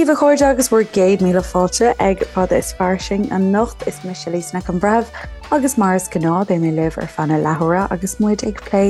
daoibh a chairde agus bhur gcéad míle fáilte ag Fada is Fairsing anocht. Is mise Lisa Nic an Bhreithimh agus mar is gnáth beidh mé libh ar feadh na leathuaire agus muid ag plé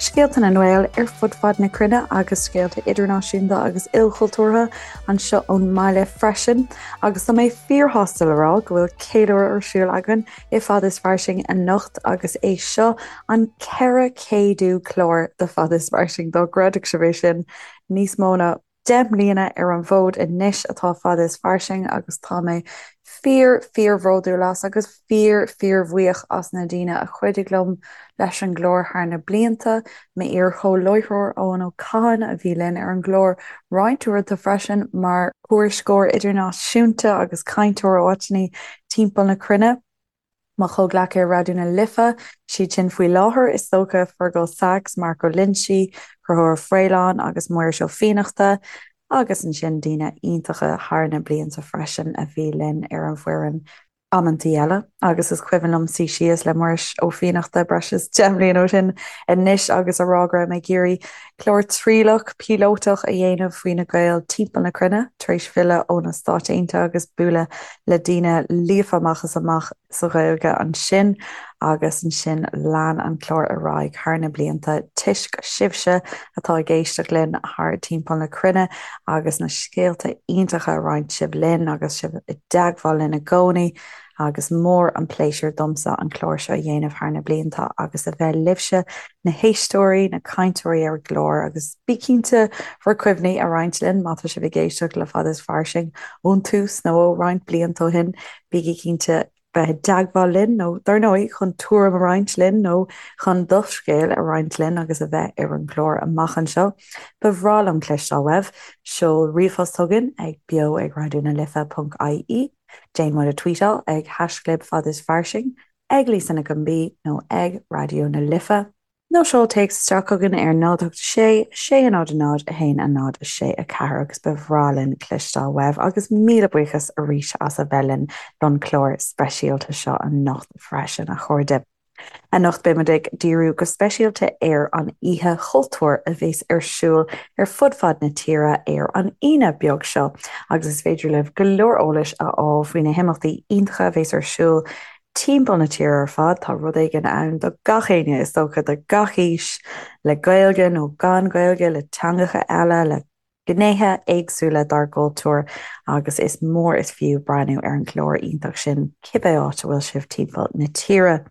scéalta na nGael ar fud fad na cruinne agus scéalta idirnáisiúnta agus ilchultúrtha anseo ón mbaile freisin. Agus tá mé fíorshásta le rá go bhfuil ceiliúradh ar siúl againn i Fada is Fairsing anocht agus é seo an 400ú clár de Fada is Fairsing, dá gcreidfeadh sibh é sin, níos mó ná 10 mbliana ar an bhfód anois atá Fada is Fairsing agus tá mé fíor, fíor-bhródúil as agus fíor, fíor-bhuíoch as na daoine a chuidigh liom leis an gclár thar na blianta, M'iar-chomhláithreoir Eoin Ó Catháin a bhí linn ar an gclár roinnt uaireanta freisin mar thuairisceoir idirnáisiúnta agus cainteoir ó áiteanna timpeall na cruinne. Mo chomhghleacaithe ar Raidió na Life, siad sin faoi láthair, is dócha, Fearghal Saxe, Mark Ó Loinsigh, Conchúr Ó Faoláin agus Muiris Ó Fiannachta, agus ansin daoine iontacha thar na blianta freisin a bhí linn ar an bhfoireann amantaí eile. Agus is cuimhin liom suí síos le Muiris Ó Fiannachta breis is 10 mbliana ó shin anois agus a rá go raibh mé ag iarraidh clár trialach, píolótach a dhéanamh faoi na Gaeil timpeall na cruinne, tar éis filleadh ó na Stáit Aontaithe agus bualadh le daoine líofa amach is amach sa Ghaeilge ansin agus ansin lean an clár ar aghaidh thar na blianta toisc sibhse atá ag éisteacht linn thar timpeall na cruinne agus na scéalta iontacha a roinnt sibh linn agus sibh i dteagmháil linn i gcónaí. agus mór an pléisiúr domsa an clár seo a dhéanamh thar na blianta agus a bheith libhse, na héisteoirí, na cainteoirí ar an gclár agus bí cinnte bhur cuimhní a roinnt linn má tá sibh ag éisteacht le Fada is Fairsing ón tús nó ó roinnt blianta ó shin, bígí cinnte bheith i dteagmháil linn nó dar ndóigh chun tuairim a roinnt linn nó chun do scéal a roinnt linn agus a bheith ar an gclár amach anseo. Ba bhreá liom cloisteáil uaibh. Seol ríomhphost chugainn ag beo ag raidió na life ponc ie. Déan muid a tweetáil ag haischlib Fada is Fairsing, ag Lisa Nic an B nó ag Raidió na Life. Nó seol téacs isteach chugainn ar 0 8 6 6 0 0 1 0 6 4 agus ba bhreá linn cloisteáil uaibh agus míle buíochas arís as a bheith linn don chlár speisialta seo anocht freisin, a chairde. Anocht beidh muid ag díriú go speisialta ar an Oíche Chultúir a bheas ar siúl ar fud fad na tíre ar an Aoine beag seo agus is féidir libh go leor eolais a fháil faoi na himeachtaí iontacha a bheas ar siúl timpeall na tíre ar fad. Tá rud éigin ann do gach éinne is dócha, do gach aois, le Gaeilge nó gan Gaeilge, le teangacha eile, le gnéithe éagsúla dár gcultúr agus is mór is fiú breathnú ar an gclár iontach sin cibé áit a bhfuil sibh timpeall na tíre.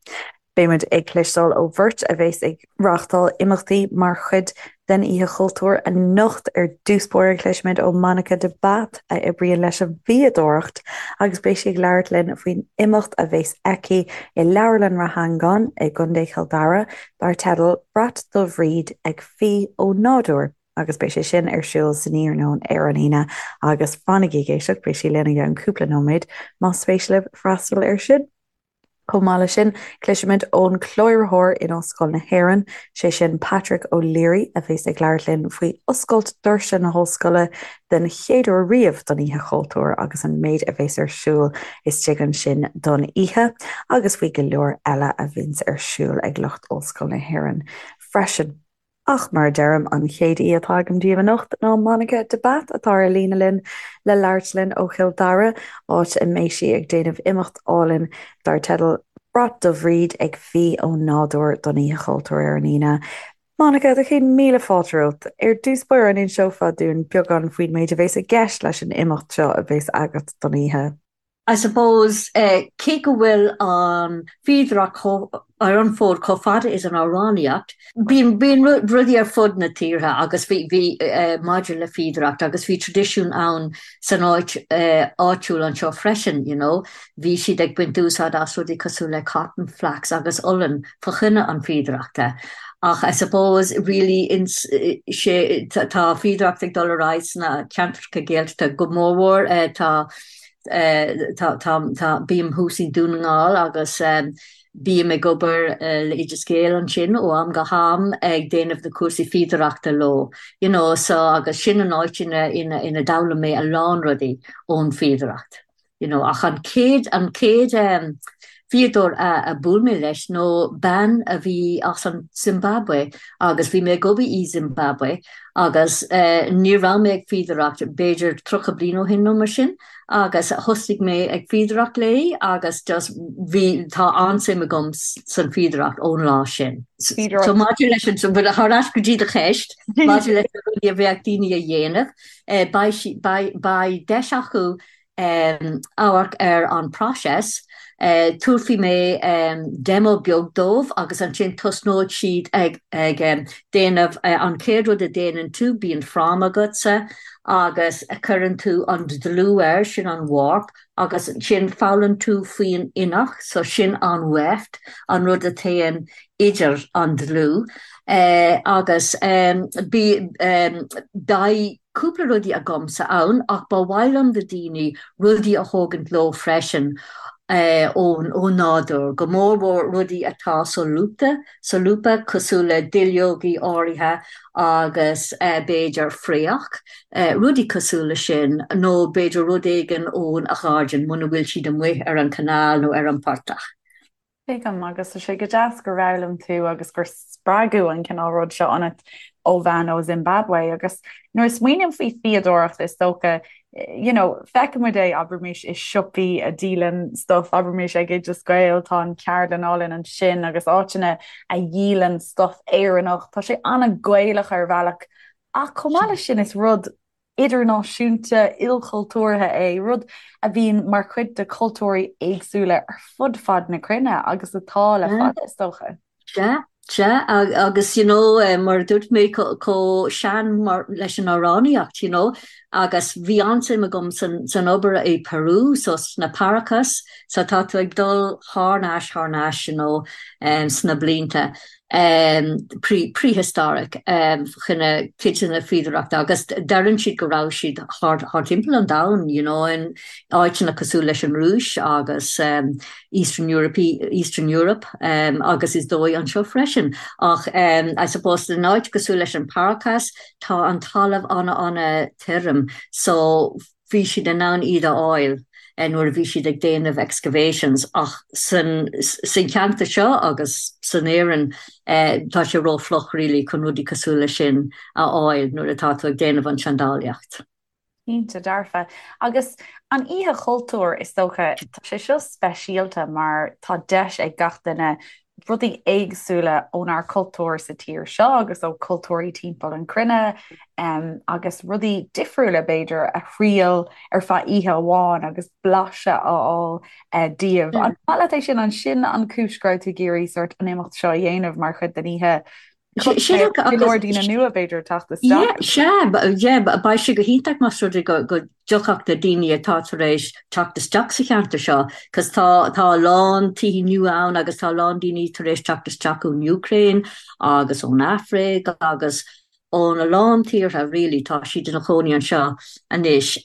Beidh muid ag cloisteáil ó bheirt a bheas ag reáchtáil imeachtaí mar chuid den Oíche Chultúir anocht. Ar dtús báire cloisfimid ó Monica de Bath a oibríonn leis an bhfíodóireacht agus beidh sí ag labhairt linn faoin imeacht a bheas aici i Leabharlann Ráth Eangáin i gContae Chill Dara dar teideal 'Brat do Bhríd ag Fí ó Nádúr'. agus beidh sé sin ar siúl san iarnóin ar an Aoine agus fanaigí ag éisteacht, beidh sí linn i gceann cúpla nóiméad más spéis libh freastal air sin. Chomh maith leis sin, cloisfimid ón chláraitheoir in Ollscoil na hÉireann, sé sin Patrick O'Leary, a bheas ag labhairt linn faoi oscailt doirse na hollscoile den chéad uair riamh don Oíche Chultúir agus an méid a bheas ar siúl istigh ansin don oíche agus faoi go leor eile a bhíonns ar siúl ag lucht Ollscoil na hÉireann freisin. Ach mar a deirim, an chéad aoi atá agam daoibh anocht ná Monica de Bath atá ar líne linn le labhairt linn ó Chill Dara, áit a mbeidh sí ag déanamh imeacht álainn dar teideal 'Brat do Bhríd ag Fí ó Nádúr' don Oíche Chultúir ar an Aoine. Monica, do chéad míle fáilte romhat. Ar dtús báire, an inseofá dúinn beagán faoin méid a bheas i gceist leis an imeacht seo a bheas agat don oíche? I suppose, cé go bhfuil an fhíodóireacht ar an bhfód chomh fada is an amhránaíocht, bíonn bíonn rudaí ar fud na tíortha agus bhí bhí maidir le fíodóireacht agus bhí traidisiún ann san áit áitiúil anseo freisin, you know. Bhí siad ag baint úsáid as rudaí cosúil le cotton, flax agus olann fa choinne an fíodóireachta. Ach I suppose really ins sé tá fíodóireacht ag dul ar aghaidh sna ceantracha Gaeltachta go mórmhór tá Tá, tá, tá, bím thuas i nDún na nGall agus bím ag obair le Oideas Gael ansin ó am go ham ag déanamh na cúrsaí fíodóireachta leo, you know, so agus sin an áit ina, ina, ina d'fhoghlaim mé a lán rudaí ón fíodóireacht, you know. Ach an chéad, an chéad. Fíodóir a bhuail mé leis nó bean a bhí as an Zimbabwe agus bhí mé ag obair i Zimbabwe agus ní raibh mé ag fíodóireacht b'fhéidir 30 bliain ó shin nó mar sin agus thosaigh mé ag fíodóireacht léi agus just bhí, tá an-suim agam san fíodóireacht ón lá sin. So maidir leis an, thar ais go dtí do cheist, maidir leis na rudaí a bheadh daoine a dhéanamh, beidh, beidh deis acu amharc ar an próiseas. Tabharfaidh mé demo beag dóibh agus ansin tosnóidh siad ag déanamh an chéad rud a déanann tú, bíonn fráma agatsa agus cuireann tú an dlúth air, sin an warp, agus ansin foghlaim tú faoin inneach, so sin an weft, an rud a théann idir an dlúth agus beidh cúpla rudaí agamsa ann ach ba mhaith liom do daoine rudaí a thógaint leo freisin ón nádúr, go mór mhór rudaí atá solúbtha, solúbtha cosúil le duilleogaí áirithe agus b'fhéidir fraoch, rudaí cosúil le sin nó b'fhéidir rud éigin ón ghairdín muna bhfuil siad amuigh ar an canal nó ar an portach. Tuigim, agus tá sé go deas gur fhoghlaim tú agus gur spreagadh an cineál rud seo ionat ó bhean ó Zimbabwe. Agus nuair a smaoiním faoi fíodóireacht, is dócha, you know, feicimid é, abraimis, i siopaí a dhíolann stuff, abraimis ag Oideas Gael, tá an ceardlann álainn ansin agus áiteanna a dhíolann stuff Éireannach. Tá sé an-Ghaelach ar bhealach ach chomh maith leis sin is rud idirnáisiúnta, ilchultúrtha é, rud a bhíonn mar chuid de chultúirí éagsúla ar fud fad na cruinne agus atá le fada, is dócha. Sea, sea, agus you know, mar a dúirt mé, chomh sean mar leis an amhránaíocht, you know, agus bhí an-suim agam san, san obair i Peru, so sna Paracas, so tá tú ag dul thar n-ais, thar n-ais, you know, sna blianta. prehistoric chun cuid de na fíodóireachta agus deireann siad go raibh siad thart timpeall an domhain you know in áiteanna cosúil leis an Rúis agus Eastern Europe Eastern Europe agus is dóigh anseo freisin ach I suppose in áit cosúil leis an Paracas tá an talamh ana-ana tirim so bhí siad in ann iad a fháil nuair a bhí siad ag déanamh excavations ach san cheantar seo agus san Éirinn tá sé ró-fhliuch really chun rudaí cosúil leis sin a fháil nuair atá tú ag déanamh an seandálaíocht. Cinnte dearfa. Agus an Oíche Chultúir, is dócha, tá sé seo speisialta mar tá deis ag gach duine rudaí éagsúla ónár cultúr sa tír seo agus ó cultúirí timpeall an cruinne agus rudaí difriúla b'fhéidir a thriail ar feadh oíche amháin agus blaiseadh a fháil díobh. An maith leat é sin? An sin an cúis go raibh tú ag iarraidh sort an imeacht seo a dhéanamh mar chuid den oíche? Go leor daoine nua b'fhéidir ag teacht isteach. Sea, yeah, beidh sé go hiontach más rud é go dtiocfadh na daoine atá tar éis teacht isteach sa cheantar seo, cos tá tá a lán tithe nua ann agus tá a lán daoine tar éis teacht isteach ón Úcráin agus ón Afraic agus ón a lán tíortha really, tá siad ina chónaí anseo anois.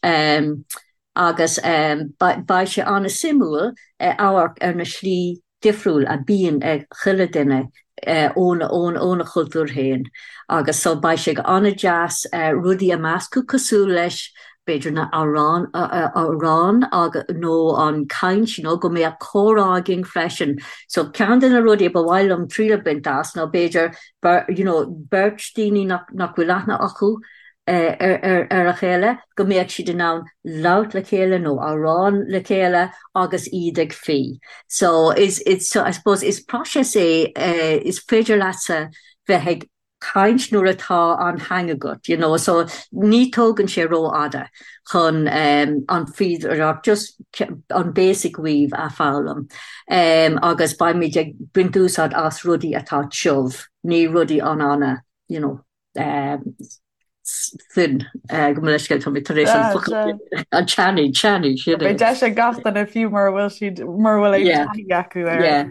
Agus beidh sé an-suimiúil amharc ar na slí difriúil a bíonn ag chuile duine óna chultúr féin agus so beidh sé an-deas rudaí a meascadh cosúil leis b'fhéidir na amhráin amhráin nó an caint you know go mbeadh comhrá againn freisin. So ceann de na rudaí a ba mhaith liom triail a bhaint as ná b'fhéidir you know beirt daoine nach nach bhfuil aithne acu ar a chéile, go mbeadh siad in ann labhairt le chéile nó amhrán le chéile agus iad ag fí. So is, it's, so I suppose is próiseas é, is féidir leatsa bheith ag caint nuair atá an hang agat, you know, so ní tógann sé rófhada chun an fíodóireacht, just an basic weave a foghlaim. Agus beimid ag baint úsáid as rudaí atá tiubh, ní rudaí an-ana, you know. Thin, gabh mo leithscéal, tá mé tar éis an focal an tanaí, tanaí, sin é. Beidh deis ag gach duine fiú mura bhfuil siad, mura bhfuil aon taithí acu air. Yeah,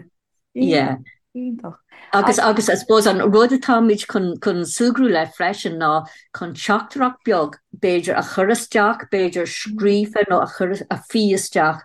yeah. Iontach. Agus, agus I suppose an rud atáimid chun, chun súgradh le freisin ná chun teachtaireacht beag b'fhéidir a chur isteach, b'fhéidir scríofa nó a chur, a fhí isteach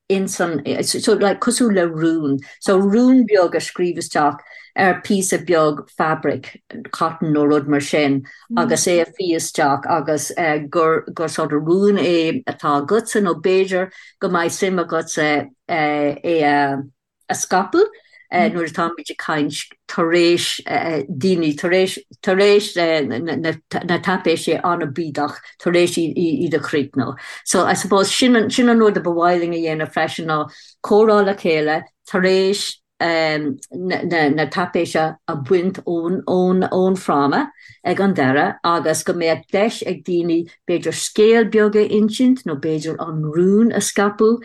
ins an, so like cosúil le rún, so rún beag a scríobh isteach ar píosa beag fabric, cotton nó rud mar sin agus é a fhí isteach agus gur, gur sort of rún é atá agatsa nó b'fhéidir go mbeidh suim agatsa é a. a scaipeadh nuair atáimid ag caint tar éis daoine tar éis tar éis na taipéisí an-bídeach tar éis iad a chríochnú. So I suppose sin an sin an rud a ba mhaith linn a dhéanamh freisin ná comhrá le chéile tar éis na taipéise a bhaint ón fráma ag an deireadh agus go mbeadh deis ag daoine b'fhéidir scéal beag a insint nó b'fhéidir an rún a scaipeadh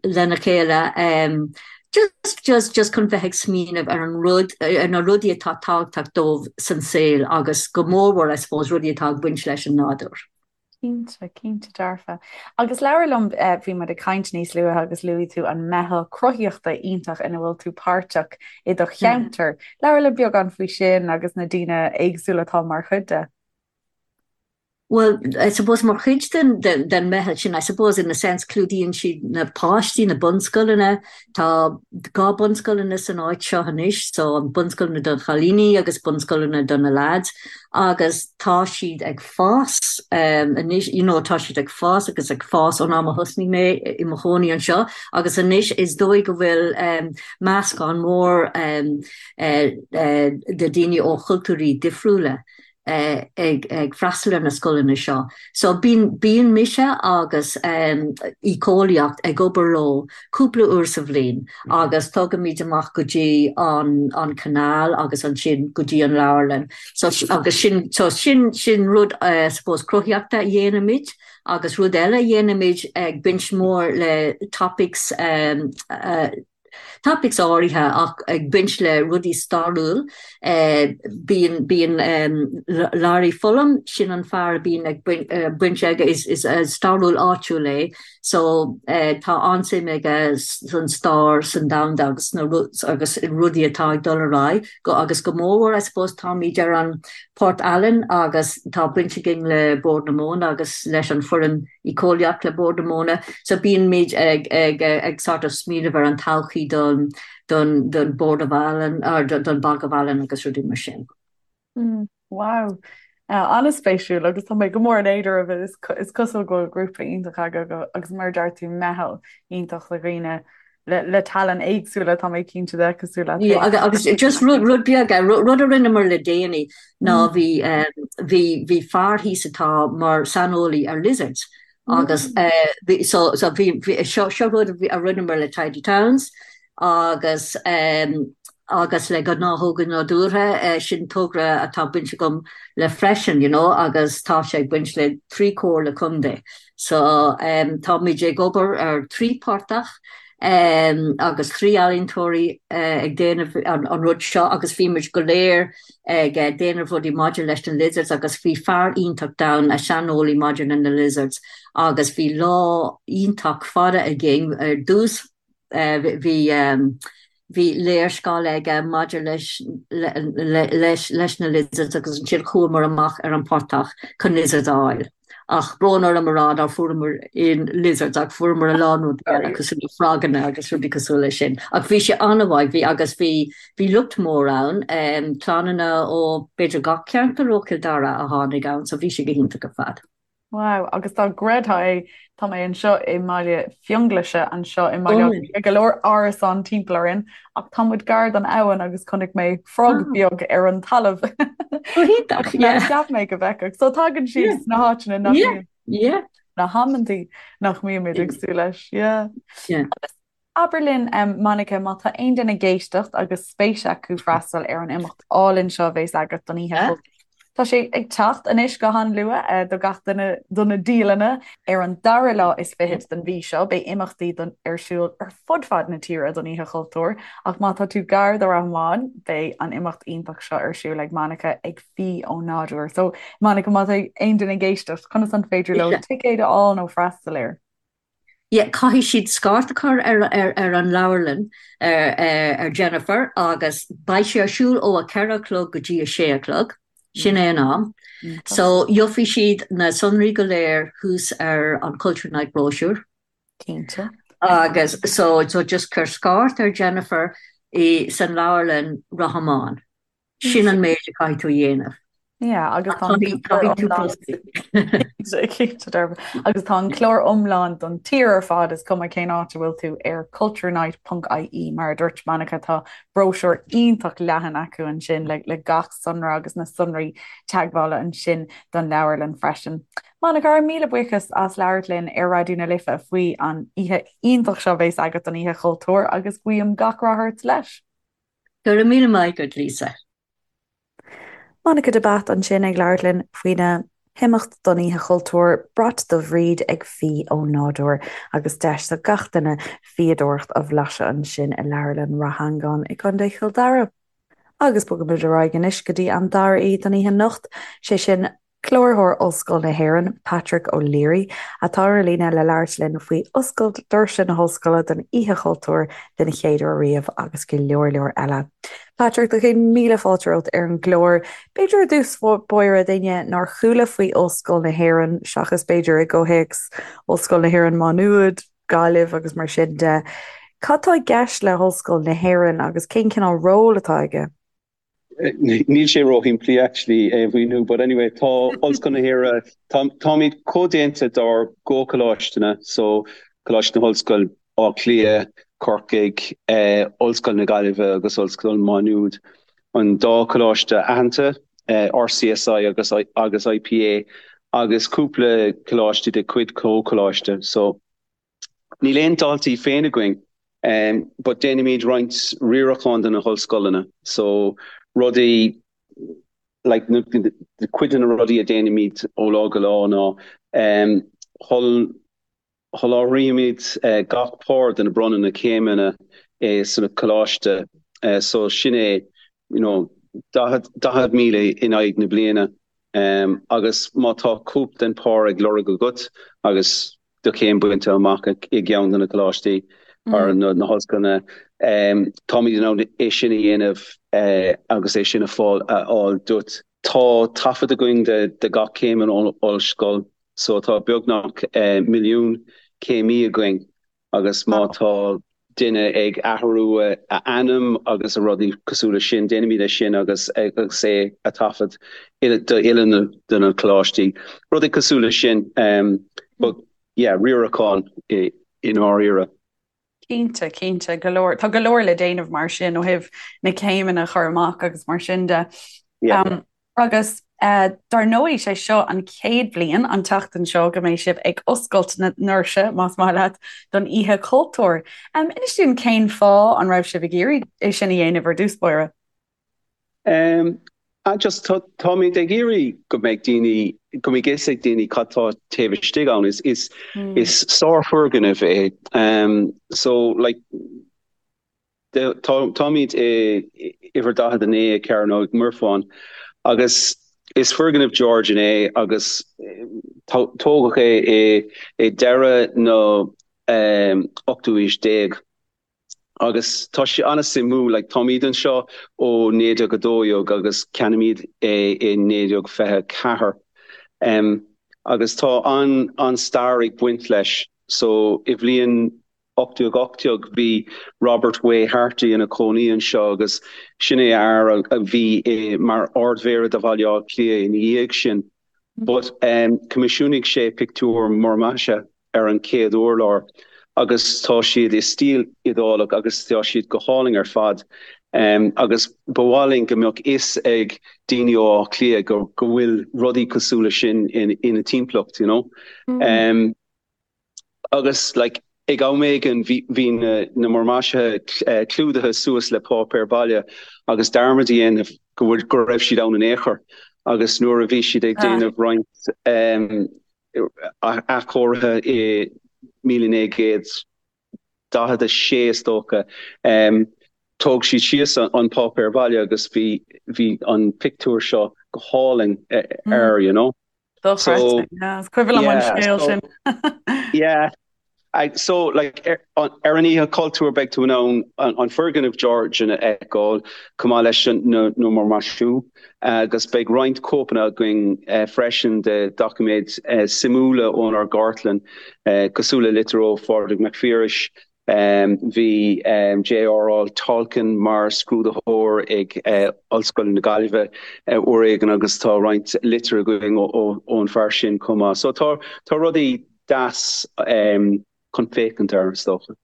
lena chéile just just just chun bheith ag smaoineamh ar an rud ar na rudaí atá tábhachtach dóibh san saol agus go mórmhór I suppose rudaí atá ag baint leis an nádúr. Cinnte, cinnte dearfa. Agus labhair liom, bhí muid ag caint níos luaithe agus luaigh tú an meitheal cruthaitheachta iontach ina bhfuil tú páirteach i do cheantar. Labhair liom beagán faoi sin agus na daoine éagsúla atá mar chuid de. Bhuel, I suppose mar chuid den, den, den meitheal sin, I suppose in a sense clúdaíonn siad na páistí, na bunscoileanna, tá 2 bunscoileanna san áit seo anois, so an bunscoileanna don chailíní agus bunscoileanna do na lads agus tá siad ag fás anois, you know, tá siad ag fás agus ag fás ón am a thosnaigh mé i mo chónaí anseo agus anois is dóigh go bhfuil meascán mór de daoine ó chultúirí difriúla ag freastal ar na scoileanna seo. So bíonn, bíonn mise agus éiceolaíocht ag obair leo cúpla uair sa bhliain agus tugaimid amach go dtí an an canal agus ansin go dtí an leabharlann. So agus sin so sin sin rud I suppose cruthaíochta a dhéanaimid agus rud eile a dhéanaimid ag baint mór le topics topics áirithe ach ag baint le rudaí stairiúil. Bíonn bíonn Larry Fullam, sin an fear a bíonn ag baint aige, is is stairiúil áitiúil é so tá an-suim aige san stair san domhanda agus sna agus rudaí atá ag dul ar aghaidh go agus go mórmhór I suppose táimid ar an Port Allen agus tá baint againn le Bord na Móna agus leis an foireann éiceolaíocht le Bord na Móna so bíonn ag ag ag sort of smaoineamh ar an todhchaí don don don Board of Allen or don Bog of Allen agus rudaí mar sin. Mm, wow. Uh, an-spéisiúil agus tá mé go mór in éad oraibh is, is cosúil go bhfuil grúpa iontach agaibh agus mar a deir tú meitheal iontach le dhaoine le, le tallann éagsúla tá mé cinnte de cosúil leat Yeah, agus, agus just rud, rud beag, eh, rud, rud a rinneamar le déanaí ná mm. bhí, um, bhí, bhí fear thíos atá mar saineolaí ar lizards agus mm. uh, bhí, so, so bhí, bhí, seo, seo rud a rinneamar le Tidy Towns agus um, agus le gnáthóga nádúrtha, uh, sin togra atá baint agam le freisin, you know, agus tá sé ag baint le trí comhairle contae. So táimid ag obair ar thrí portach agus thrí ealaíontóirí ag déanamh an rud seo agus bhí muid go léir ag déanamh rudaí maidir leis na lizards agus bhí fear iontach ann, a saineolaí maidir le na lizards agus bhí lá iontach fada againn ar dtús bhí bhí léarscáil aige maidir leis leis leis na lizards agus ansin chuamar amach ar an portach chun lizards a fháil. Ach brón orm a rá nár fuaireamar aon lizards ach fuaireamar a lán rudaí eile cosúil le froganna agus rudaí cosúil leis sin. Ach bhí sé an-mhaith, bhí agus bhí bhí lucht mór ann, clannanna ó b'fhéidir gach ceantar ó Chill Dara a tháinig ann so bhí sé go hiontach ar fad. Wow, agus dá gcreidfeá é, tá mé anseo i mBaile Fionnghlaise anseo i mBaile Átha Cliath, go leor árasán timpeall orainn, ach tá muid gar don abhainn agus chonaic mé frog beag ar an talamh. Go hiontach, yeah. Cheap mé go bhfeicfeadh. So tagann siad sna háiteanna nach mbíonn, yeah. na hamantaí nach mbímid ag súil leis, yeah. Yeah. Abair linn, Monica, má tá aon duine ag éisteacht agus spéis acu freastal ar an imeacht álainn seo a bheas agat don Oíche Chultúir. Tá sé ag teacht anois go han-luath do gach duine do na dialanna. Ar an dara lá is fichead den mhí seo beidh imeachtaí don ar siúl ar fud fad na tíre don Oíche Chultúir ach má tá tú gar do Ráth Mháin beidh an imeacht iontach seo ar siúl ag Monica ag Fí ón Nádúr. So Monica má tá aon duine ag éisteacht conas an féidir leo ticéad a fháil nó freastal air? Yeah, caithfidh siad scairt a chur ar ar ar an leabharlann ar ar Jennifer agus beidh sé ar siúl ó a 4 a chlog go dtí a 6 a chlog, sin é an am. So gheobhaidh siad na sonraí go léir thuas ar an Culture Night brochure. Cinnte. Agus so so just cuir scairt ar Jennifer i san leabharlann Ráth Mháin. Sin an méid a caithfidh tú a dhéanamh. Yeah, agus tá an Caithfidh tú post. Cinnte dearfa. Agus tá an clár iomlán don tír ar fad, is cuma cén áit a bhfuil tú, ar culturenight.ie mar a dúirt Monica, tá bróisiúr iontach leathan acu ansin le gach sonra agus na sonraí teagmhála ansin don leabharlann freisin. Monica, ár míle buíochas as labhairt linn ar Raidió na Life faoi an oíche iontach seo a bheas agat don Oíche Chultúir agus guím gach rath ort leis. Go raibh míle maith agat, Lisa. Monica de Bath ansin ag labhairt linn faoina himeacht don Oíche Chultúir, Brat do Bhríd ag Fí ó Nádúr agus deis do gach duine fíodóireacht a bhlaiseadh ansin i Leabharlann Rath Angáin i gContae Chill Dara. Agus bogaimid ar aghaidh anois go dtí an dara aoi don oíche anocht, sé sin Cláraitheoir Ollscoil na hÉireann, Patrick O'Leary, atá ar líne le labhairt linn faoi oscailt doirse na hOllscoile don Oíche Chultúir den chéad uair riamh agus go leor leor eile. Patrick, do chéad míle fáilte romhat ar an gclár. B'fhéidir i dtús báire d'éinne nár chuala faoi Ollscoil na hÉireann, seachas b'fhéidir i gcomhthéacs Ollscoil na hÉireann Má Nuad, Gaillimh agus mar sin de, cad tá i gceist le hOllscoil na hÉireann agus cén cineál ról atá aige? Níl sé róshimplí actually é a mhíniú but anyway tá Ollscoil na hÉireann, táimid comhdhéanta dár gcomhcholáisteanna so Coláiste na hOllscoile, Áth Cliath, Corcaigh, Ollscoil na Gaillimhe agus Ollscoil Mhá Nuad. An dá choláiste aitheanta, RCSI agus agus IPA agus cúpla coláiste de chuid comhcholáiste so. Níl aon daltaí féin againn but déanaimid roinnt riaracháin do na hollscoileanna so rudaí like cuid de na rudaí a déanaimid ó lá go lá ná sholáthraímid gach pár de na bronnadh na céimeanna sna coláiste so sin é you know 40,000 in aghaidh na bliana agus má tá cóip den pár ag lorg agat agus do chéim bainte amach i gceann de na coláistí or na hollscoileanna. Táimid in ann é sin a dhéanamh agus é sin a fháil duit. Tá taifead againn de gach céim in ollscoil so tá beagnach milliún céimí againn agus má tá duine ag athrú a ainm agus a rudaí cosúil leis sin, déanaimid é sin agus agus é a taifead do uile de na coláistí. Rudaí cosúil leis sin. But yeah, riarachán i ndáiríre. Cinnte, cinnte, go leor, tá go leor le déanamh mar sin ó thaobh na céimeanna a chur amach agus mar sin de. Yeah. Agus dar ndóigh, sé seo an chéad bhliain, an tseachtain seo, go mbeidh sibh ag oscailt na ndoirse, más maith leat, don Oíche Chultúir. Inis dúinn cén fáth an raibh sibh ag iarraidh é sin a dhéanamh ar dtús báire? Just táimid ag iarraidh go mbeidh daoine, go mbeidh fhios ag daoine cad tá taobh istigh ann. Is, is, is sárfhoirgneamh é. So, like, Táimid i uimhir 49 i Cearnóg Mhuirfean agus is foirgneamh Georgian é agus tógadh é i deireadh na ochtú aois déag agus tá sé an-suimiúil. Like táimid anseo ó 1912 agus ceannaímid é i 1924 agus tá an-stair ag baint leis. So i bhliain 1818 bhí Robert Way Harte ina chónaí anseo agus sin é fhear a bhí mar Ard-Mhéara de Bhaile Átha Cliath ina dhiaidh sin. But choimisiúnaigh sé pictiúir múrmhaisithe ar an chéad urlár agus tá siad i stíl Iodálach agus tá siad go hálainn ar fad. Agus ba mhaith linn go mbeadh fhios ag daoine ó Áth Cliath go bhfuil rudaí cosúil leis sin ina dtimpeallacht, you know. Agus like ag am éigin bhí bhí na na múrmhaisithe clúdaithe suas le páipéar baile agus dearmad a dhéanamh go bhfuil go raibh siad ann in aon chor agus nuair a bhí siad ag déanamh roinnt athchóirithe i 1946 is dócha thóg siad síos an páipéar baile agus bhí bhí an pictiúr seo go hálainn air you know. Dochreidte. Yeah, is cuimhin liom an scéal sin. Yeah. So like ar an Oíche Chultúir beidh tú in ann an foirgneamh Georgian a fheiceáil chomh maith leis na múrmhaisiú agus beidh roinnt cóipeanna againn freisin de doiciméid suimiúla ónár gcartlann cosúil le litir ó Phádraig Mac Phiarais. Bhí J.R.R. Tolkien mar scrúdaitheoir ag Ollscoil na Gaillimhe uair éigin agus tá roinnt litir againn ón fear sin chomh maith. So tá rudaí deas chun féachaint air, is dócha.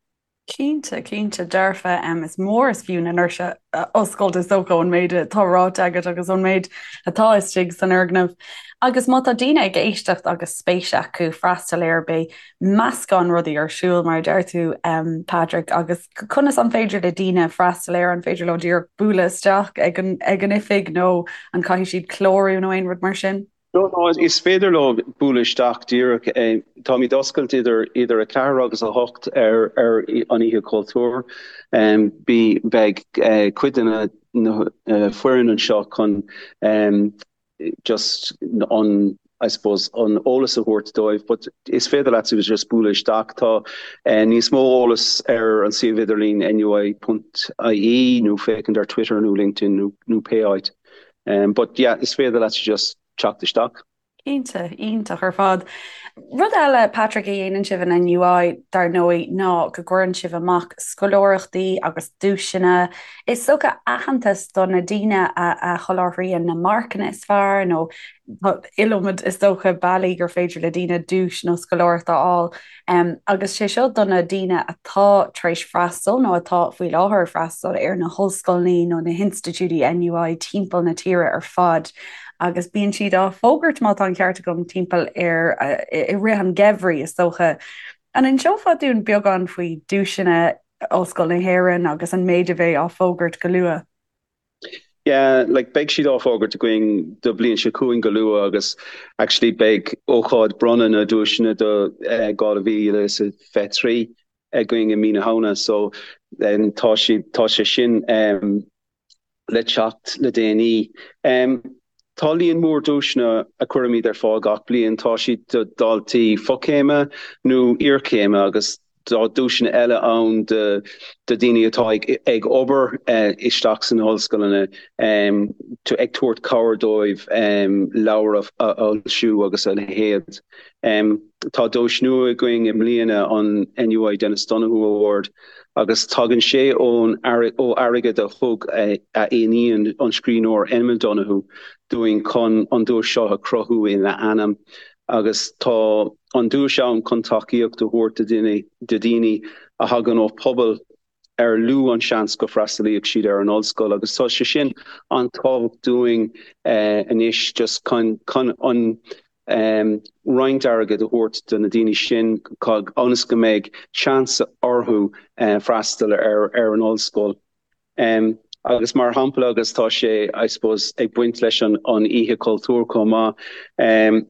Cinnte, cinnte, dearfa. Is mór is fiú na ndoirse a oscailt is dócha ón méid atá ráite agat agus ón méid atá istigh san fhoirgneamh. Agus má tá daoine ag éisteacht agus spéis acu freastal air, beidh meascán rudaí ar siúl, mar a deir tú, Patrick, agus conas an féidir le daoine freastal air? An féidir leo díreach bualadh isteach ag an ag an oifig nó an caithfidh siad clárú nó aon rud mar sin? No, no, is féidir leo bualadh isteach díreach. Táimid oscailte idir idir 4 agus 8 ar ar an Oíche Chultúir. Bí beidh cuid de na na foireann anseo chun just an I suppose an eolas a thabhairt dóibh but is féidir leat just bualadh isteach. Tá níos mó eolas ar an suíomh idirlín nui.ie nó féachaint ar Twitter nó LinkedIn nó nó pé áit. But yeah is féidir leat just teacht isteach. Cinnte, iontach ar fad. Rud eile, Patrick, a dhéanann sibh in NUI, dar ndóigh, ná go gcuireann sibh amach scoláireachtaí agus duaiseanna. Is dócha aitheantas do na daoine a sholáthraíonn na marcanna is fearr nó tá iliomad is dócha bealaí gur féidir le daoine duais nó scoláireacht a fháil. Agus sé seo do na daoine atá tar éis freastal nó atá faoi láthair ag freastal ar na hollscoileanna nó na hinstitiúidí NUI timpeall na tíre ar fad agus bíonn siad á bhfógairt, má tá an ceart agam, timpeall ar i rith an gheimhridh is dócha. An inseofá dúinn beagán faoi duaiseanna Ollscoil na hÉireann agus an méid a bheidh á fógairt go luath? Yeah, like beidh siad á fógairt againn do bliain seo chugainn go luath agus actually beidh ócáid bronnadh na duaiseanna do 2023 againn i mí na Shamhna so tá siad tá sé sin le teacht le déanaí. Tá líon mór duaiseanna a chuirimid ar fáil gach bliain. Tá siad do dhaltaí fochéime nó iarchéime agus tá duaiseanna eile ann do dhaoine atá ag obair isteach sna hollscoileanna, ag tabhairt cabhair dóibh leabhair a fhoilsiú agus a leithéid. Tá duais nua againn i mbliana, an NUI Denis Donoghue Award, agus tagann sé ón ó airgead a thug a iníon, an scríbhneoir Emma Donoghue, dúinn chun an duais seo a chruthú ina ainm. Agus tá an duais ann chun tacaíocht a thabhairt do dhaoine a thagann ó phobail ar lú an seans go bhfreastalaíodh siad ar an ollscoil agus tá sé sin an-tábhachtach dúinn anois just chun chun an roinnt airgid a thabhairt do na daoine sin ionas go mbeidh seans orthu freastal ar ar an ollscoil. Agus mar shampla agus tá sé I suppose ag baint leis an an Oíche Chultúir chomh maith,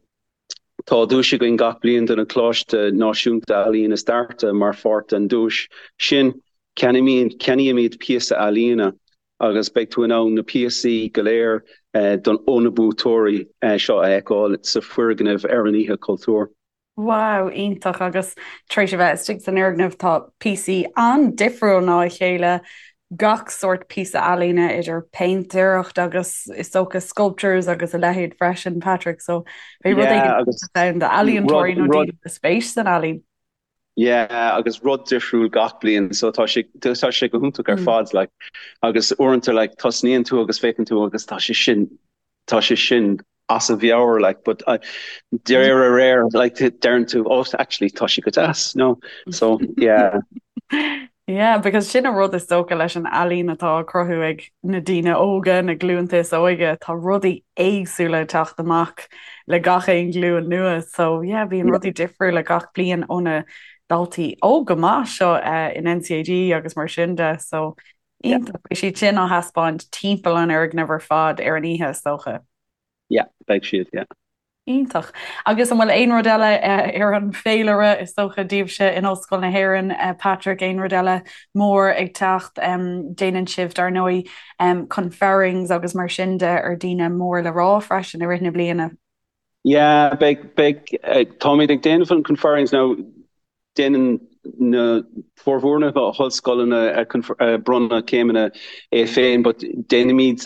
Tá duais againn gach bliain do na Coláiste Náisiúnta Ealaíon is Deartha mar pháirt den duais sin. Ceannaímid píosa ealaíne agus beidh tú in ann na píosaí go léir ó na buaiteoirí seo a fheiceáil sa foirgneamh ar an Oíche Chultúir. Wow, iontach agus tar éis a bheith istigh san fhoirgneamh tá píosaí an-difriúil ná a chéile gach sórt píosa ealaíne idir péintéireacht agus is dócha sculptures agus a leithéid freisin, Patrick, so beidh rud éigin ann d'ealaíontóirí nó daoine le spéis san ealaín. Yeah, agus rud difriúil gach bliain, so tá sé tá sé go hiontach ar fad like agus uaireanta like tosnaíonn tú agus féachann tú agus tá sé sin tá sé sin as a mheabhair like but uh, de réir a réir like deireann tú oh actually tá sé go deas no so yeah. Yeah, because sin an rud is dócha leis an ealaín atá á cruthú ag na daoine óga, na glúnta is óige, tá rudaí éagsúla ag teacht amach le gach aon ghlúin nua. So yeah, bíonn rudaí difriúla gach bliain ó na daltaí óga maith seo uh, in NCAD agus mar sin de. So Iontach. Beidh siad sin á thaispeáint timpeall an fhoirgnimh ar fad ar an oíche, is dócha. Yeah, beidh siad, yeah. Iontach. Agus an bhfuil aon rud eile ar an bhféilire, is dócha, daoibhse in Ollscoil na hÉireann, Patrick, aon rud eile mór ag teacht? Déanann sibh, dar ndóigh, conferrings agus mar sin de ar daoine mór le rá freisin i rith na bliana. Yeah, beidh, beidh, táimid ag déanamh an conferrings now, déanann na formhór na hollscoileanna bronnadh céimeanna é féin, but déanaimid.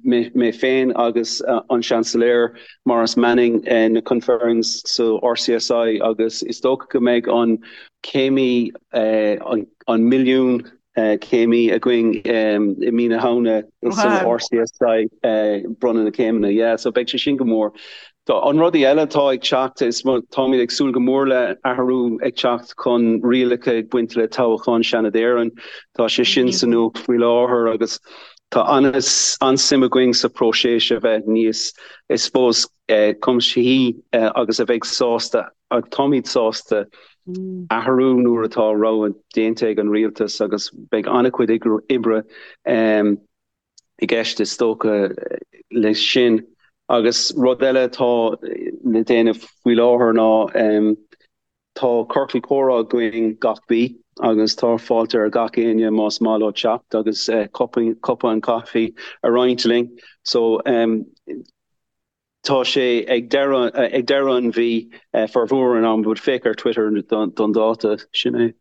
mé féin agus an Seansailéir Maurice Manning na conferrings sa RCSI agus is dócha go mbeidh an céimí an milliún céimí againn i mí na Shamhna san RCSI bronnadh na céimeanna. Yeah, so beidh sé sin go mór. Tá an rudaí eile atá ag teacht, is táimid ag súil go mór le athrú ag teacht chun rialacha ag baint le toghchán Seanad Éireann. Tá sé sin sa nuacht faoi láthair agus tá an-suim againn sa próiseas a bheith níos, I suppose, cuimsithí agus a bheidh sásta, agus táimid sásta, athrú nuair atá rogha déanta ag an rialtas agus beidh an-chuid oibre i gceist is dócha leis sin. Agus rud eile atá le déanamh faoi láthair ná tá ciorcal comhrá againn gach mí agus tá fáilte ar gach éinne más maith leo teacht agus cupán caife a roinnt linn. So tá sé ag deireadh ag deireadh an mhí formhór an am but féach ar Twitter don dáta, sin é.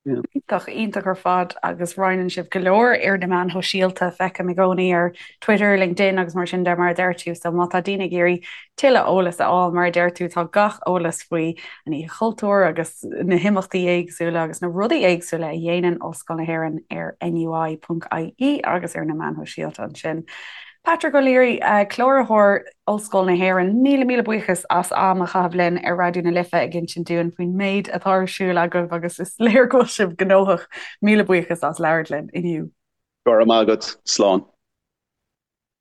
Iontach, iontach ar fad agus roinneann sibh go leor ar na meáin shóisialta, feicim i gcónaí ar Twitter, LinkedIn agus mar sin de mar a deir tú, so má tá daoine ag iarraidh tuilleadh eolas a fháil mar a deir tú tá gach eolas faoi an Oíche Chultúir agus na himeachtaí éagsúla agus na rudaí éagsúla a dhéanann Ollscoil na hÉireann ar NUI.ie agus ar na meáin shóisialta ansin. Patrick O'Leary, Cláraitheoir Ollscoil na hÉireann, míle míle buíochas as am a chaitheamh linn ar Raidió na Life ag insint dúinn faoin méid atá ar siúl agaibh agus is léir go bhfuil sibh gnóthach. Míle buíochas as labhairt linn inniu. Go raibh maith agat. Slán.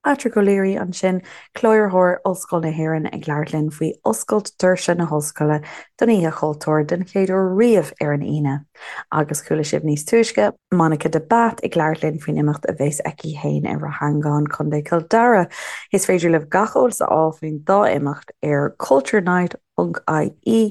Patrick O'Leary ansin, Cláraitheoir Ollscoil na hÉireann ag labhairt linn faoi oscailt doirse na hOllscoile don Oíche Chultúir den chéad uair riamh ar an Aoine. Agus chuala sibh níos túisce, Monica de Bath ag labhairt linn faoin imeacht a bheas aici féin i Rath Eangáin, Co. Chill Dara. Is féidir libh gach eolas a fháil faoin dá imeacht ar culturenight.ie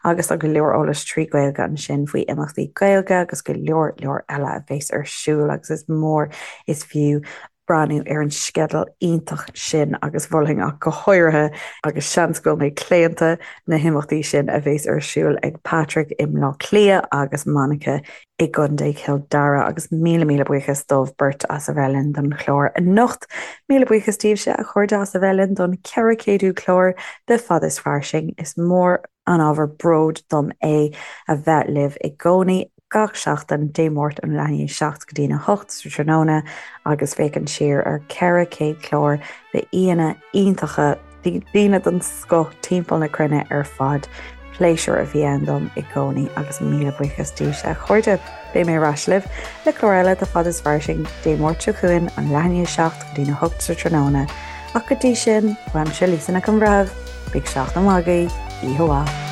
agus tá go leor eolais trí Ghaeilge ansin faoi imeachtaí Gaeilge agus go leor leor eile a bheas ar siúl agus is mór is fiú breathnú ar an sceideal iontach sin agus mholfainn ach go háirithe, agus seans go bhfuil mé claonta, na himeachtaí sin a bheas ar siúl ag Patrick i mBleá Cliath agus Monica i gContae Chill Dara agus míle míle buíochas dóibh beirt as a bheith linn don chlár anocht. Míle buíochas daoibhse a chairde as a bheith linn don 400ú clár de Fad is Fairsing. Is mór an ábhar bróid dom é a bheith libh i gcónaí. gach seachtain, Dé Máirt ón leath i ndiaidh 7 go dtína 8 sa tráthnóna agus féachaint siar ar 400 clár d'aíonna iontacha, daoine den scoth timpeall na cruinne ar fad. Pléisiúr a bhí ann dom i gcónaí agus míle buíochas daoibhse a chairde. Beidh mé ar ais libh le clár eile de Fad is Fairsing Dé Máirt seo chugainn ón leath i ndiaidh 7 go dtína 8 sa tráthnóna. Ach go dtí sin, uaimse Lisa Nic an Bhreithimh, bíodh seachtain mhaith agaibh, oíche mhaith.